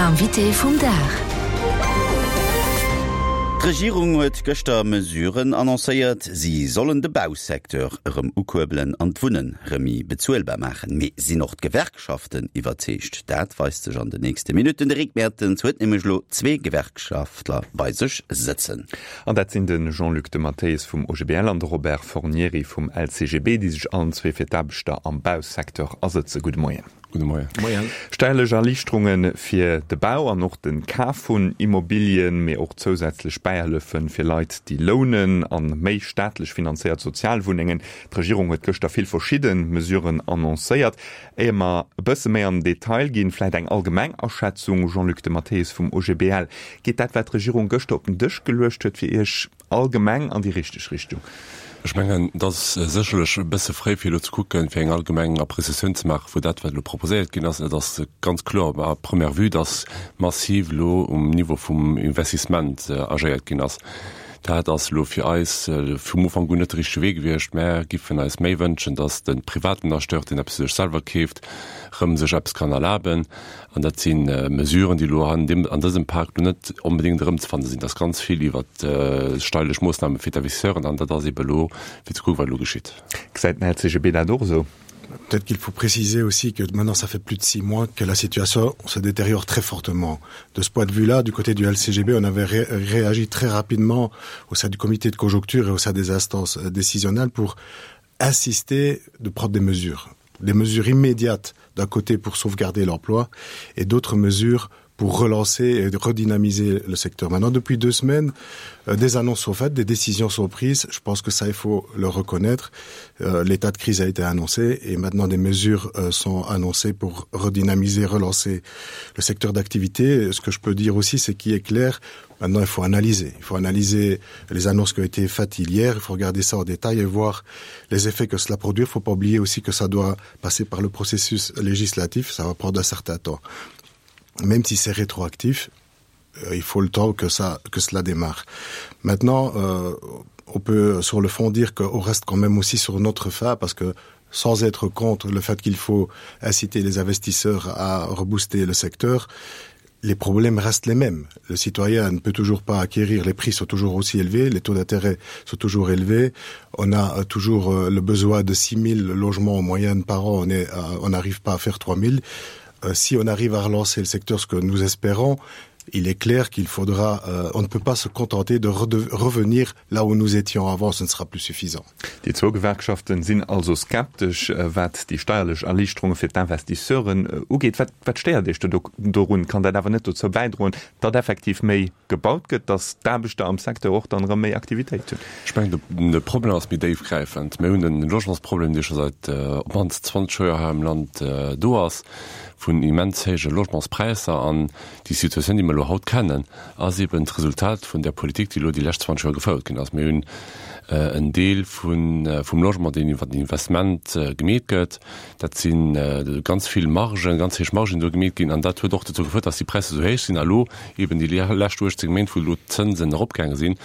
Invité vum Dag. D'Regierung huet gëschter Mesuren annoncéiert. Si sollen de Bausecteur erëm ukuerbelen an d'Wunnen rëm méi bezuelbar maachen. Mee sinn och d'Gewerkschaften iwwerzeegt? Dat weist sech an den nächste Minutten. De Rick Mertens huet nämlech elo zwee Gewerkschaftler bei sech sëtzen. An dat sinn de Jean-Luc de Matteis vum OGBL an de Robert Fornieri vum LCGB, déi sech allen zwee fir d'Aarbechter am Bausecteur asëtzen. Gudde Moien. Gudde Moien. Moien. Steierlech Erliichterunge fir de Bau an och de Kaf vun Immobilien, mee och zousätzlech Bäihëllefe fir Leit, déi lounen a méi staatlech finanzéiert Sozialwunnengen. D'Regierung huet gëschter vill verschidde Mesuren annoncéiert. Éier mer e bësse méi an den Detail ginn, vläicht eng allgemeng Aschätzung, Jean-Luc De Matteis vum OGBL, Geet dat, wat d'Regierung gëschter op den Dësch geluecht huet, fir Iech Allgemeng an déi richteg Richtung. Ech mengen, et ass sécherlech e bësse fréi fir elo ze kucken, fir eng allgemeng Appréciatioun ze maache vu dat, wat elo proposéiert ginn ass. Et ass ganz kloer à première vue, dass massiv elo um Niveau vum Investissement agéiert ginn ass. Dat ass elo fir eis vum Ufank un net de richtege Wee gewiescht. Mär giffen eis méi wënschen, dass de privaten Acheteur, deen eppes fir sech selwer keeft, erëm sech eppes kann erlaben. An dat si Mesuren, déi elo an deem, an dësem Pak elo net onbedéngt erëmzefanne sinn. Et ass ganz vill iwwert steierlech Moossname fir d'Investisseuren an dat ass eebe elo fir ze kucken, wat elo geschitt. Gesäit den LCGB dat och esou? Peut-être qu'il faut préciser aussi que maintenant ça fait plus de six mois que la situation se détériore très fortement. De ce point de vue-là, du côté du LCGB, on avait ré réagi très rapidement au sein du comité de conjoncture et au sein des instances euh, décisionnelles pour insister de prendre des mesures. Des mesures immédiates d'un côté pour sauvegarder l'emploi et d'autres mesures pour relancer et redynamiser le secteur. Maintenant, depuis deux semaines, euh, des annonces sont faites, des décisions sont prises. Je pense que ça, il faut le reconnaître. Euh, l'état de crise a été annoncé et maintenant des mesures euh, sont annoncées pour redynamiser, relancer le secteur d'activité. Ce que je peux dire aussi, c'est qu'il est clair, maintenant il faut analyser. Il faut analyser les annonces qui ont été faites hier, il faut regarder ça en détail et voir les effets que cela produit. Il ne faut pas oublier aussi que ça doit passer par le processus législatif, ça va prendre un certain temps. Même si c'est rétroactif, euh, il faut le temps que, ça, que cela démarre. Maintenant, euh, on peut sur le fond dire qu'on reste quand même aussi sur notre fin parce que sans être contre le fait qu'il faut inciter les investisseurs à rebooster le secteur, les problèmes restent les mêmes. Le citoyen ne peut toujours pas acquérir, les prix sont toujours aussi élevés, les taux d'intérêt sont toujours élevés. On a euh, toujours euh, le besoin de 6000 logements en moyenne par an, on est, euh, on n'arrive pas à faire 3000. Si on arrive à relancer le secteur, ce que nous espérons, il est clair qu'il faudra euh, on ne peut pas se contenter de revenir là où nous étions avant, ce ne sera plus suffisant. Déi zwou Gewerkschaften sinn also skeptesch, wat déi steierlech Erliichterunge fir d'Investisseuren ugeet. Wat, wat stéiert Iech do dorun? Kann dat awer net dozou bäidroen, datt effektiv méi gebaut gëtt, datt d'Aarbechter am Secteur och dann erëm méi Aktivitéit hunn? Ech mengen, de Problem ass méi déifgräifend. Mir hunn e Logementsproblem, dee scho säit op d'mannst 20 Joer hei am Land do ass, vun immens héije Logementspräisser. An déi Situatioun, déi mer elo haut kennen, ass eben d'Resultat vun där Politik, déi elo déi lescht 20 Joer gefouert ginn ass. Mir hunn en Deel vum Logement, deen iwwer den Investment gemeet gëtt. Dat si ganz vill Margen, ganz héich Margen, déi do gemeet ginn. An dat huet och dozou gefouert, dass déi Präisser esou héich sinn. A elo eben déi lescht 18 Méint, wou elo d'Zënsen eropgaange sinn,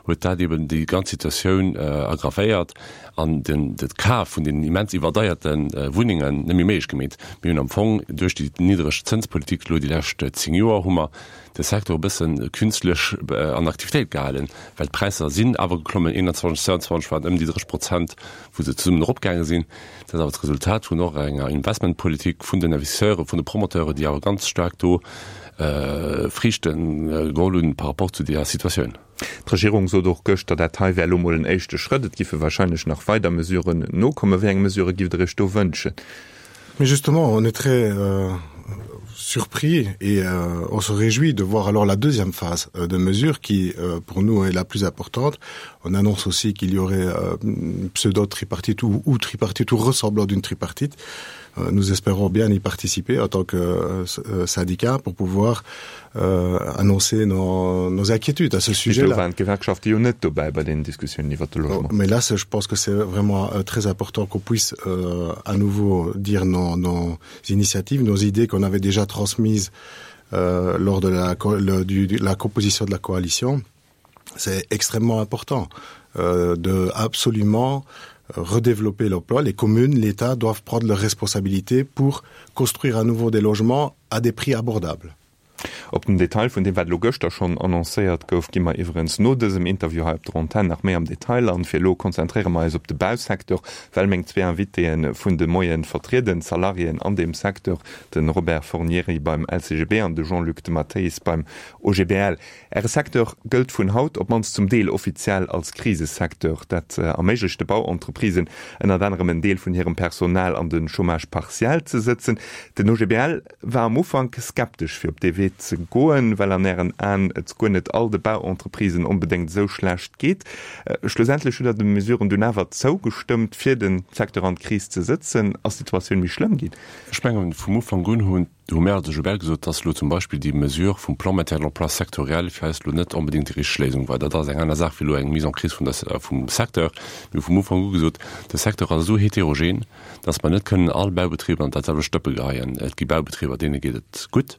huet dat eben déi ganz Situatioun aggravéiert an den de Kaf vun deenen immens iwwerdeierte Wunnengen net méi méiglech gemeet. Mir hunn am Fong duerch déi niddreg Zënspolitik elo déi lescht 10 Joer hu mer de Secteur e bësse künstlech an Aktivitéit gehalen, well d'Präisser sinn awer geklommen, 21, 22 waren ëm déi 30 Prozent, wou se zesummen eropgaange sinn. Dat ass awer d'Resultat vun och enger Investmentpolitik vun den Investisseuren, vun de Promoteuren, déi awer ganz staark do Friichte geholl hunn par rapport zu deeër Situatioun. D'Regierung sot och gëschter, dat hei wär elo mol en éischte Schrëtt, et giffe wahrscheinlech nach weider Mesuren nokommen. Wéi eng Mesurë giff Der Iech do wënschen? Mais justement, on est très euh, surpris et euh, on se réjouit de voir alors la deuxième phase euh, de mesure qui, euh, pour nous, est la plus importante. On annonce aussi qu'il y aurait euh, pseudo-tripartite ou, ou tripartite ou ressemblant d'une tripartite. Euh, nous espérons bien y participer en tant que euh, euh syndicat pour pouvoir euh, annoncer nos, nos inquiétudes à ce sujet là. Oh, mais là je pense que c'est vraiment euh, très important qu'on puisse euh, à nouveau dire nos, nos initiatives, nos idées qu'on avait déjà transmises euh, lors de la, le, du, de la composition de la coalition. C'est extrêmement important euh, de absolument redévelopper l'emploi. Les communes, l'État doivent prendre leurs responsabilités pour construire à nouveau des logements à des prix abordables. Op den Detail vun deem, wat elo gëschter schonn annoncéiert gouf, gi mer iwwerens no dësem Interview hei op der Antenn nach méi am Detail an. Fir elo konzentréiere mer eis op de Bausecteur, well meng zwee Invitéen vun de Moien vertrieden d'Salariéen an deem Secteur, de Robert Fornieri beim LCGB an de Jean-Luc de Matteis beim OGBL. Äre Secteur gëllt vun haut op d'mannst zum Deel offiziell als Krisesecteur. Dat erméiglecht de Bauentreprisen ënnert anerem en Deel vun hirem Personal an de Chômage partiel ze sëtzen. Den OGBL war am Ufank skeptesch fir op dee Wee ze goen, well an Ären Aen et guer net all de Bauentreprisen onbedéngt esou schlecht geet. Schlussendlech hutt Der de Mesuren dunn awer zougestëmmt, fir de Secteur an d'Kris ze sëtzen. Ass d'Situatioun méi schlëmm ginn? Ech mengen, vum Ufank un hunn hu mir als OGBL gesot, dass elo zum Beispill déi Mesure vum Plan maintien de l'emploi sectoriel fir eis elo net onbedéngt déi richteg Léisung war. Dat ass eng aner Saach wéi elo eng Mise en crise vun der, vum Secteur. Mir hu vum Ufank u gesot, de Secteur ass esou heterogen, dass mer net kënnen all Baubetriber an dat selwecht Dëppe geheien. Et gi Baubetriber, deene geet et gutt.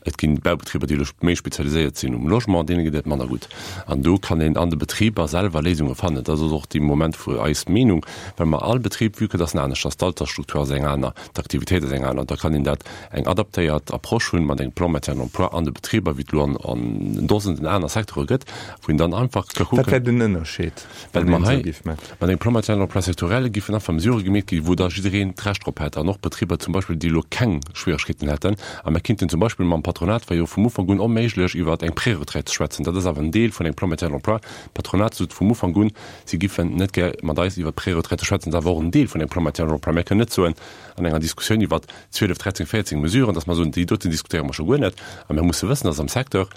Et gi Baubetriber, déi elo méi spezialiséiert sinn um Logement, deene geet et manner gutt. An do kann een an de Betriber selwer Léisunge fannen. Dat ass och de Moment vu eis Meenung, well mer all Betrib, vue que dass en anescht ass, d'Altersstruktur ass eng aner, D'Aktivitéit ass eng aner. Da kann een dat eng adaptéiert Approche hunn mat engem Plan maintien d'emploi an de Betriber, wéi et elo an an Dosenden aner Secteure gëtt, wou een dann einfach ka kucken. Wat wär den Ënnerscheed, wann een esou géif maachen? Mat engem Plan maintien d'emploi sectoriel géifen einfach Mesurë gemeet ginn, wou da jiddereen d'Recht drop hätt an och Betriber zum Beispill, déi elo keng Schwieregkeeten hätten. A mer kinnten zum Beispill mam Patronat, war jo vum Ufank un onméiglech, iwwer eng Préretraite ze schwätzen. Dat ass awer en Deel vun engem Plan maintien d'emploi. D'Patronat sot vum Ufank un, Si giffen net gär mat eis iwwert d'Preretraite schwätzen. Dat ass awer och en Deel vun engem Plan maintien de l'emploi. Mir kënnen net soen an enger Diskussioun iwwer 12, 13, 14 Mesuren, datt mer soen, déi doten diskutéiere mer scho guer net. A mir musse wëssen, datt am Secteur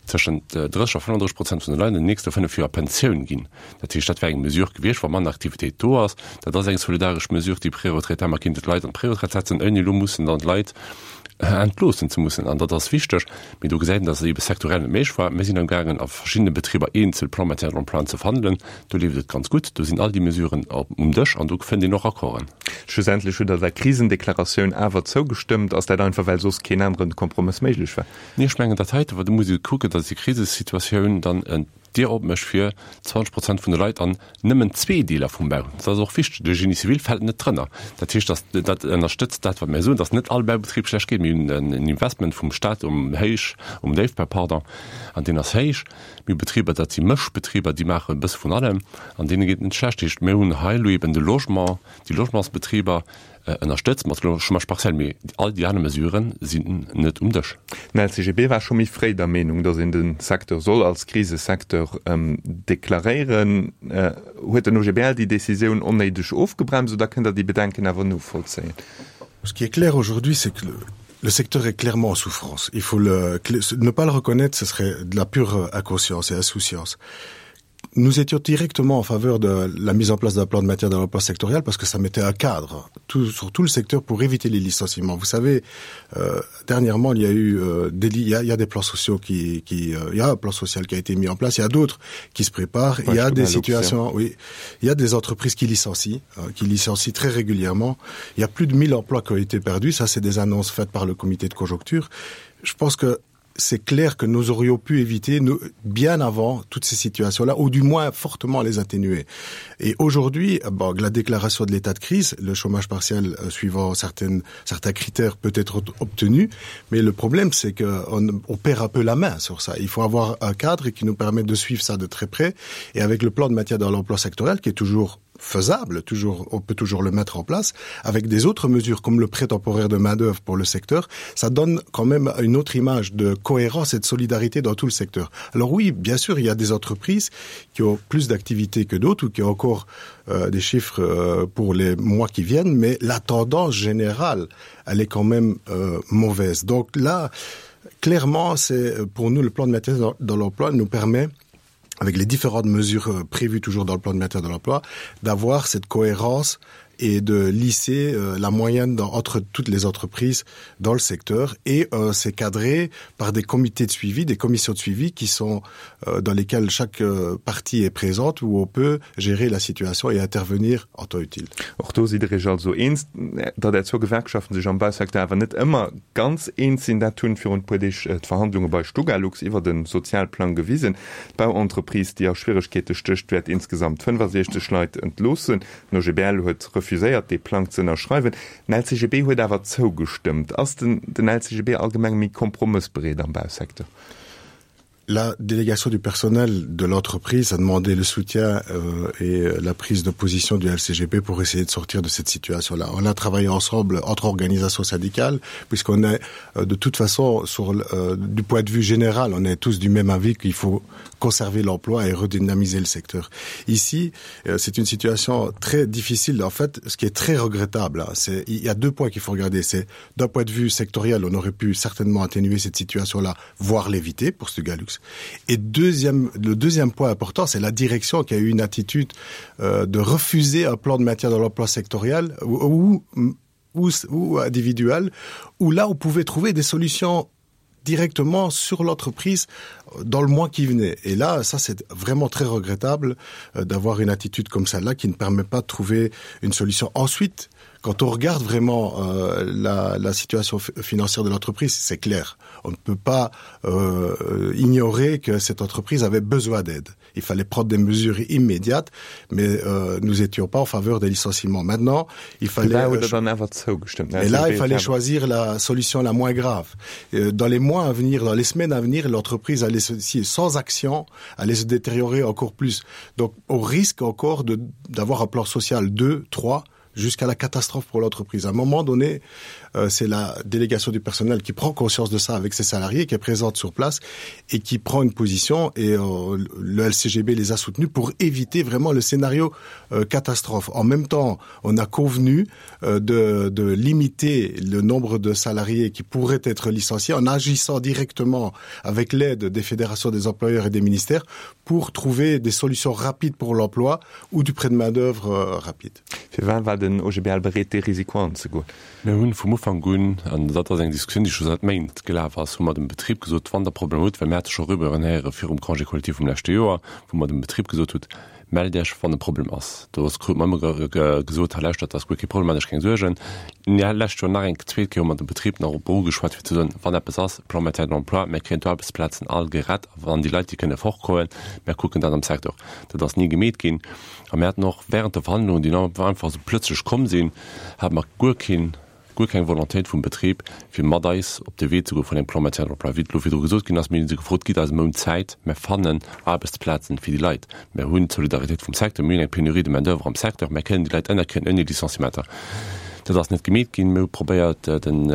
tëschent 30 a 35 Prozent vun de Leit an den nächste fënnef Joer a Pensioun ginn. Dat heescht, dat wär eng Mesure gewiescht, wa manner Aktivitéit do ass. Dat ass eng solidaresch Mesure, déi Preretraite. Mer kinnten d'Leit an d'Preretraite setzen, ouni elo mussen dann d'Leit entloossen ze mussen. An dat ass wichteg. Mee do gesäit een, dass et eebe sektorell net méiglech war. Mir sinn amgaangen, a verschiddene Betriber eenzel Plans maintien de l'emploi ze verhandelen. Do leeft et ganz gutt. Do sinn all déi Mesuren um Dësch an do fënnt een och Accorden. Schlussendlech hutt Der der Krisendeklaratioun awer zougestëmmt. Ass dat einfach, well soss keen anere Kompromëss méiglech war? Nee, ech mengen dat heite, do muss ee kucken, dass déi Krisesituatioun dann en Dier opmécht fir 20 Prozent vun de Leit an nëmmen zwee Deeler vum Bau. Dat ass och wichteg. De Génie civil fält net drënner. Dat heescht, dass dat ënnerstëtzt dat, wat mir soen, dass net all Baubetrib schlecht geet. Mir hunn en Investment vum Stat um Héich, um Déifbau, pardon, an deen ass héich. Mir hu Betriber, dat si Mëschbetriber, déi maachen e bësse vun allem an deene geet et net schlecht. Dat heescht, mir hunn hei elo eben de Logement, déi Logementsbetriber, Ënnerstëtzt mat Chômage partiel, mee all déi aner Mesurë sinn net um Dësch. Den LCGB war scho méi fréi der Meenung, datt een de Secteur soll als Krisesecteur deklaréieren. Huet den OGBL déi Decisioun onnéideg ofgebremst oder kënnt Der déi Bedenken awer novollzéien? Ce qui est clair aujourd'hui, c'est que le secteur est clairement en souffrance. Il faut le, ne pas le reconnaître, ce serait de la pure inconscience et insouciance. Nous étions directement en faveur de la mise en place d'un plan de matière dans l'emploi sectoriel parce que ça mettait un cadre tout, sur tout le secteur pour éviter les licenciements. Vous savez, euh, dernièrement, il y a eu euh, des, il y a, il y a des plans sociaux qui, qui euh, il y a un plan social qui a été mis en place, il y a d'autres qui se préparent, ouais, il y a des situations, oui, il y a des entreprises qui licencient, euh, qui licencient très régulièrement. Il y a plus de 1000 emplois qui ont été perdus, ça c'est des annonces faites par le comité de conjoncture. Je pense que c'est clair que nous aurions pu éviter nous, bien avant toutes ces situations-là, ou du moins fortement les atténuer. Et aujourd'hui, bon, la déclaration de l'état de crise, le chômage partiel euh, suivant certaines, certains critères peut être obtenu, mais le problème c'est qu'on on perd un peu la main sur ça. Il faut avoir un cadre qui nous permet de suivre ça de très près, et avec le plan de matière dans l'emploi sectoriel qui est toujours faisable, toujours, on peut toujours le mettre en place, avec des autres mesures comme le prêt temporaire de main-d'œuvre pour le secteur, ça donne quand même une autre image de cohérence et de solidarité dans tout le secteur. Alors oui, bien sûr, il y a des entreprises qui ont plus d'activités que d'autres ou qui ont encore euh, des chiffres euh, pour les mois qui viennent, mais la tendance générale, elle est quand même euh, mauvaise. Donc là, clairement, c'est euh, pour nous le plan de maintien dans, dans l'emploi nous permet avec les différentes mesures euh, prévues toujours dans le plan de maintien de l'emploi, d'avoir cette cohérence et de lisser euh, la moyenne dans, entre toutes les entreprises dans le secteur et euh, c'est cadré par des comités de suivi, des commissions de suivi qui sont euh, dans lesquelles chaque euh, partie est présente où on peut gérer la situation et intervenir en temps utile. Och do sidd Der Iech also eens, datt Är zwou Gewerkschaften sech am Bausecteur awer net ëmmer ganz eens sinn. Dat hunn virun e puer Deeg d'Verhandlunge bei Stugalux iwwer de Sozialplang gewisen. D'Bauentreprise, déi a Schwieregkeete stécht, wäert insgesamt 65 Leit entloossen. Den OGBL huet refuséiert. refuséiert, dee Plang ze ënnerschreiwen. Den LCGB huet awer zougestëmmt. Ass den den LCGB allgemeng méi kompromëssbereet am Bausecteur? La délégation du personnel de l'entreprise a demandé le soutien euh, et la prise de position du LCGP pour essayer de sortir de cette situation là. On a travaillé ensemble entre organisations syndicales puisqu'on est euh, de toute façon sur euh, du point de vue général, on est tous du même avis qu'il faut conserver l'emploi et redynamiser le secteur. Ici, euh, c'est une situation très difficile. En fait, ce qui est très regrettable, c'est il y a deux points qu'il faut regarder. C'est d'un point de vue sectoriel, on aurait pu certainement atténuer cette situation là, voire l'éviter pour ce Galux. Et deuxième, le deuxième point important, c'est la direction qui a eu une attitude euh, de refuser un plan de maintien dans l'emploi sectoriel ou, ou, ou, ou individuel, où là on pouvait trouver des solutions directement sur l'entreprise dans le mois qui venait. Et là, ça c'est vraiment très regrettable euh, d'avoir une attitude comme celle-là qui ne permet pas de trouver une solution. Ensuite, quand on regarde vraiment euh, la, la situation financière de l'entreprise, c'est clair. On ne peut pas euh, ignorer que cette entreprise avait besoin d'aide. Il fallait prendre des mesures immédiates, mais euh, nous étions pas en faveur des licenciements. Maintenant, il fallait là, euh, et là il fallait choisir la solution la moins grave. Euh, dans les mois à venir, dans les semaines à venir, l'entreprise allait se, si, sans action allait se détériorer encore plus. Donc au risque encore d'avoir un plan social 2, 3, jusqu'à la catastrophe pour l'entreprise. À un moment donné, euh, c'est la délégation du personnel qui prend conscience de ça avec ses salariés, qui est présente sur place et qui prend une position et euh, le LCGB les a soutenus pour éviter vraiment le scénario euh, catastrophe. En même temps, on a convenu euh, de, de limiter le nombre de salariés qui pourraient être licenciés en agissant directement avec l'aide des fédérations des employeurs et des ministères pour trouver des solutions rapides pour l'emploi ou du prêt de main d'œuvre euh, rapide. Firwat war den OGBL bereet dee Risiko anzegoen? Mir hunn vum Ufank un, an dat ass eng Diskussioun, déi scho säit Méint gelaf ass, hu mer dem Betrib gesot, wann Der Problemer hutt, well mir hate scho Rumeuren héiere virum Congé collectif vum leschte Joer, wou mer dem Betrib gesot hutt, Mellt Iech, wann e Problem ass. Do ass krute mer ëmmer gesot, hei lauschtert, dat ass guer kee Problem, maacht Iech keng Suergen. Lescht Joer nach eng zweet Kéier hu mer dem Betrib nach op erugeschwat, fir ze soen, wann eppes ass, Plan maintien de l'emploi, mir kréien d'Aarbechtsplazen all gerett, a wann déi Leit, déi kënne fortgoen, mir kucken dat am Secteur. Dat ass ni gemeet ginn. A mir haten och während de Verhandlungen, déi einfach esou plötzlech komm sinn, hate mer guer keen, guer keng Volontéit vum Betrib, fir mat eis op de Wee ze goe vun engem Plan maintien de l'emploi. Wéi et elo virdru gesot ginn ass, mir hu se gefrot, Gitt eis e Mount Zäit, mir fannen Aarbechtsplazen fir déi Leit. Mir hunn d'Solidaritéit vum Secteur, mir hunn eng Pénurie de main-d'oeuvre am Secteur, mir kënnen déi Leit ënnerkréien ouni Licenciementer. Dat ass net gemeet ginn. Mir hu probéiert, den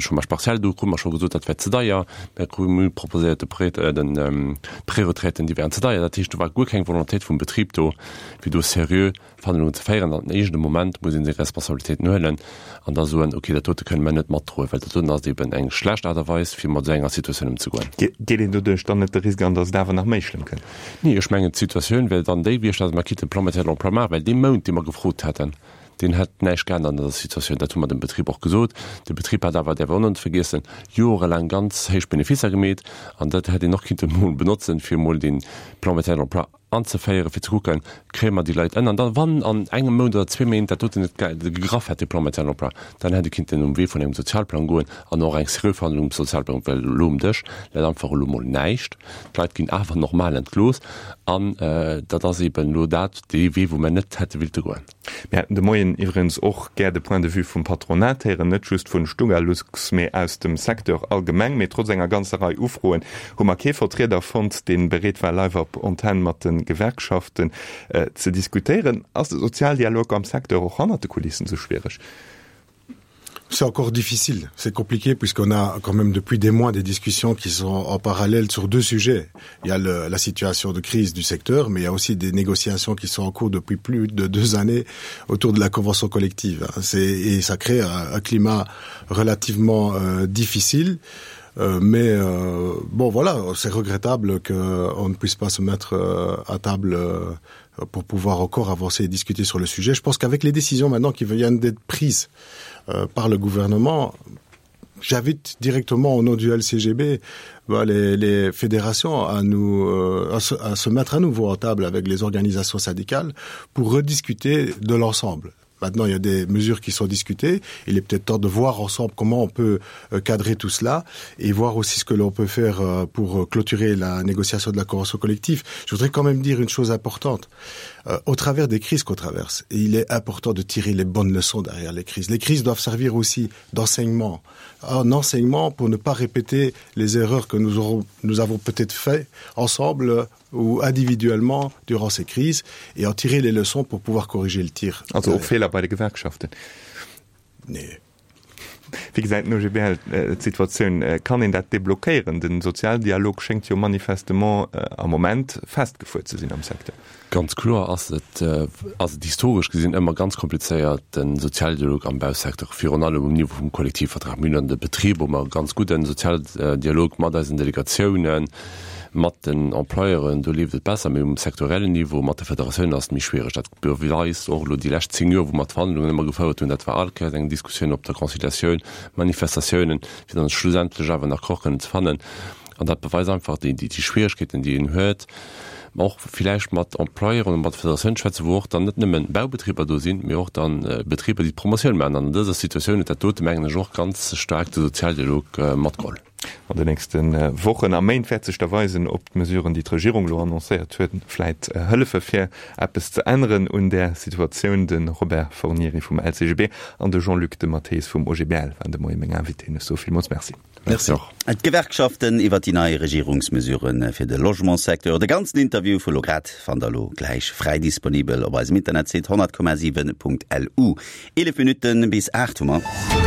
Chômage partiel, do krute mer scho gesot, dat wär ze deier. Mir hu proposéiert, de Prêt, den d'Preretraiten, déi wären ze deier. Dat heescht, do war guer keng Volontéit vum Betrib do, fir do seriö Verhandlungen ze féieren. An iergendem Moment muss ee seng Responsabilitéiten huelen an da soen, okay, dat dote kënne mer net matdroen, well dat doten ass eeben eng schlecht Aart a Weis, fir mat esou enger Situatioun ëmzegoen. Geet een doduerch dann net de Risk an, datt et awer nach méi schlëmm kënnt? Nee, ech mengen, d'Situatioun wär dann déi gewiescht, datt mer kinnten Plan maintien de l'emploi maachen, well dee Mount, dee mer gefrot hätten, Deen hätt näischt geännert an der Situatioun. Dat hu mer dem Betrib och gesot. De Betrib hat awer, däerf een och net vergiessen, jorelaang ganz héich Beneficer gemeet. An dat hätt een och kinnten emol benotzen, fir emol dee Plan maintien de l'emploi anzeféieren, fir ze kucken, kréie mer déi Leit ënner. An da wann an engem Mount oder zwee Méint dat doten net gegraff hätt, dee Plan maintien de l'emploi, dann hätt ee kinnten um Wee vun engem Sozialplang goen an och eng seriö Verhandlung um Sozialplang, well elo um Dësch läit einfach elo emol näischt. D'Leit ginn awer normal entlooss. An dat ass eeben elo dat, dee Wee, wou mer net hätte willte goen. Mir hätten de Moien iwwregens och gär de Point de vue vum Patronat héieren, net just vun Stugalux, mee aus dem Secteur allgemeng. Mee trotz enger ganzer Rei Ufroen hu mer kee Vertrieder fonnt, dee bereet war, live op Antenn mat de Gewerkschaften ze diskutéieren. Ass de Sozialdialog am Secteur och hannert de Kulissen esou schwiereg? C'est encore difficile, c'est compliqué puisqu'on a quand même depuis des mois des discussions qui sont en parallèle sur deux sujets. Il y a le, la situation de crise du secteur, mais il y a aussi des négociations qui sont en cours depuis plus de deux années autour de la convention collective. Et ça crée un, un climat relativement euh, difficile. Euh, mais euh, bon voilà, c'est regrettable qu'on ne puisse pas se mettre euh, à table euh, pour pouvoir encore avancer et discuter sur le sujet. Je pense qu'avec les décisions maintenant qui viennent d'être prises euh, par le gouvernement, j'invite directement au nom du LCGB bah, les, les fédérations à, nous, euh, à, se, à se mettre à nouveau en table avec les organisations syndicales pour rediscuter de l'ensemble. Maintenant, il y a des mesures qui sont discutées. Il est peut-être temps de voir ensemble comment on peut euh, cadrer tout cela et voir aussi ce que l'on peut faire euh, pour euh, clôturer la négociation de la convention collective. Je voudrais quand même dire une chose importante. Au travers des crises qu'on traverse, et il est important de tirer les bonnes leçons derrière les crises. Les crises doivent servir aussi d'enseignement. Un enseignement pour ne pas répéter les erreurs que nous, aurons, nous avons peut-être fait ensemble ou individuellement durant ces crises et en tirer les leçons pour pouvoir corriger le tir. Also och Feeler bei de Gewerkschaften? Nee. Wéi gesäit den OGBL d'Situatioun? Kann een dat deblockéieren? De Sozialdialog schéngt jo manifestement am Moment festgefuer ze sinn am Secteur. Ganz kloer ass et, ass et historesch gesinn ëmmer ganz komplizéiert, de Sozialdialog am Bausecteur, virun allem um Niveau vum Kollektivvertrag. Mir hunn an de Betriber hu mer e ganz gudden Sozialdialog mat eisen Delegatiounen, mat den Employeuren, do leeft et besser, mee um sektoriellen Niveau mat de Federatiounen ass et méi schwiereg. Dat beweist och elo déi lescht 10 Joer, wou mer d'Verhandlungen ëmmer gefouert hunn. Dat war all Kéiers eng Diskussioun op der Conciliatioun, Manifestatiounen, fir dann schlussendlech awer en Accord kënnen ze fannen. An dat beweist einfach déi Schwierigkeeten, déi een huet, och villäicht mat Employeuren oder mat Federatiounen ze schwätzen, wou och dann net nëmmen Baubetriber do sinn, mee och dann Betriber, déi d'Promotioun maachen. An an dëser Situatioun huet dat dote, mengen ech, och ganz staark de Sozialdialog matgeholl. An den nächste Wochen a Méint wäert sech da weisen, ob d'Mesuren, déi d'Regierung elo annoncéiert huet, vläit hëllefe fir eppes ze änneren un där Situatioun. De Robert Fornieri vum LCGB an de Jean-Luc de Matteis vum OGBL waren de Moie meng Invitéen. Ech soe villmools Merci. Merci och. D'Gewerkschaften iwwer déi nei Regierungsmesure fir de Logementssecteur. De ganzen Interview vu lo grad fannt der lo gläich fräi disponibel op eisem Internetsite 100,7.lu. 11 Minutten bis 8 hu mer.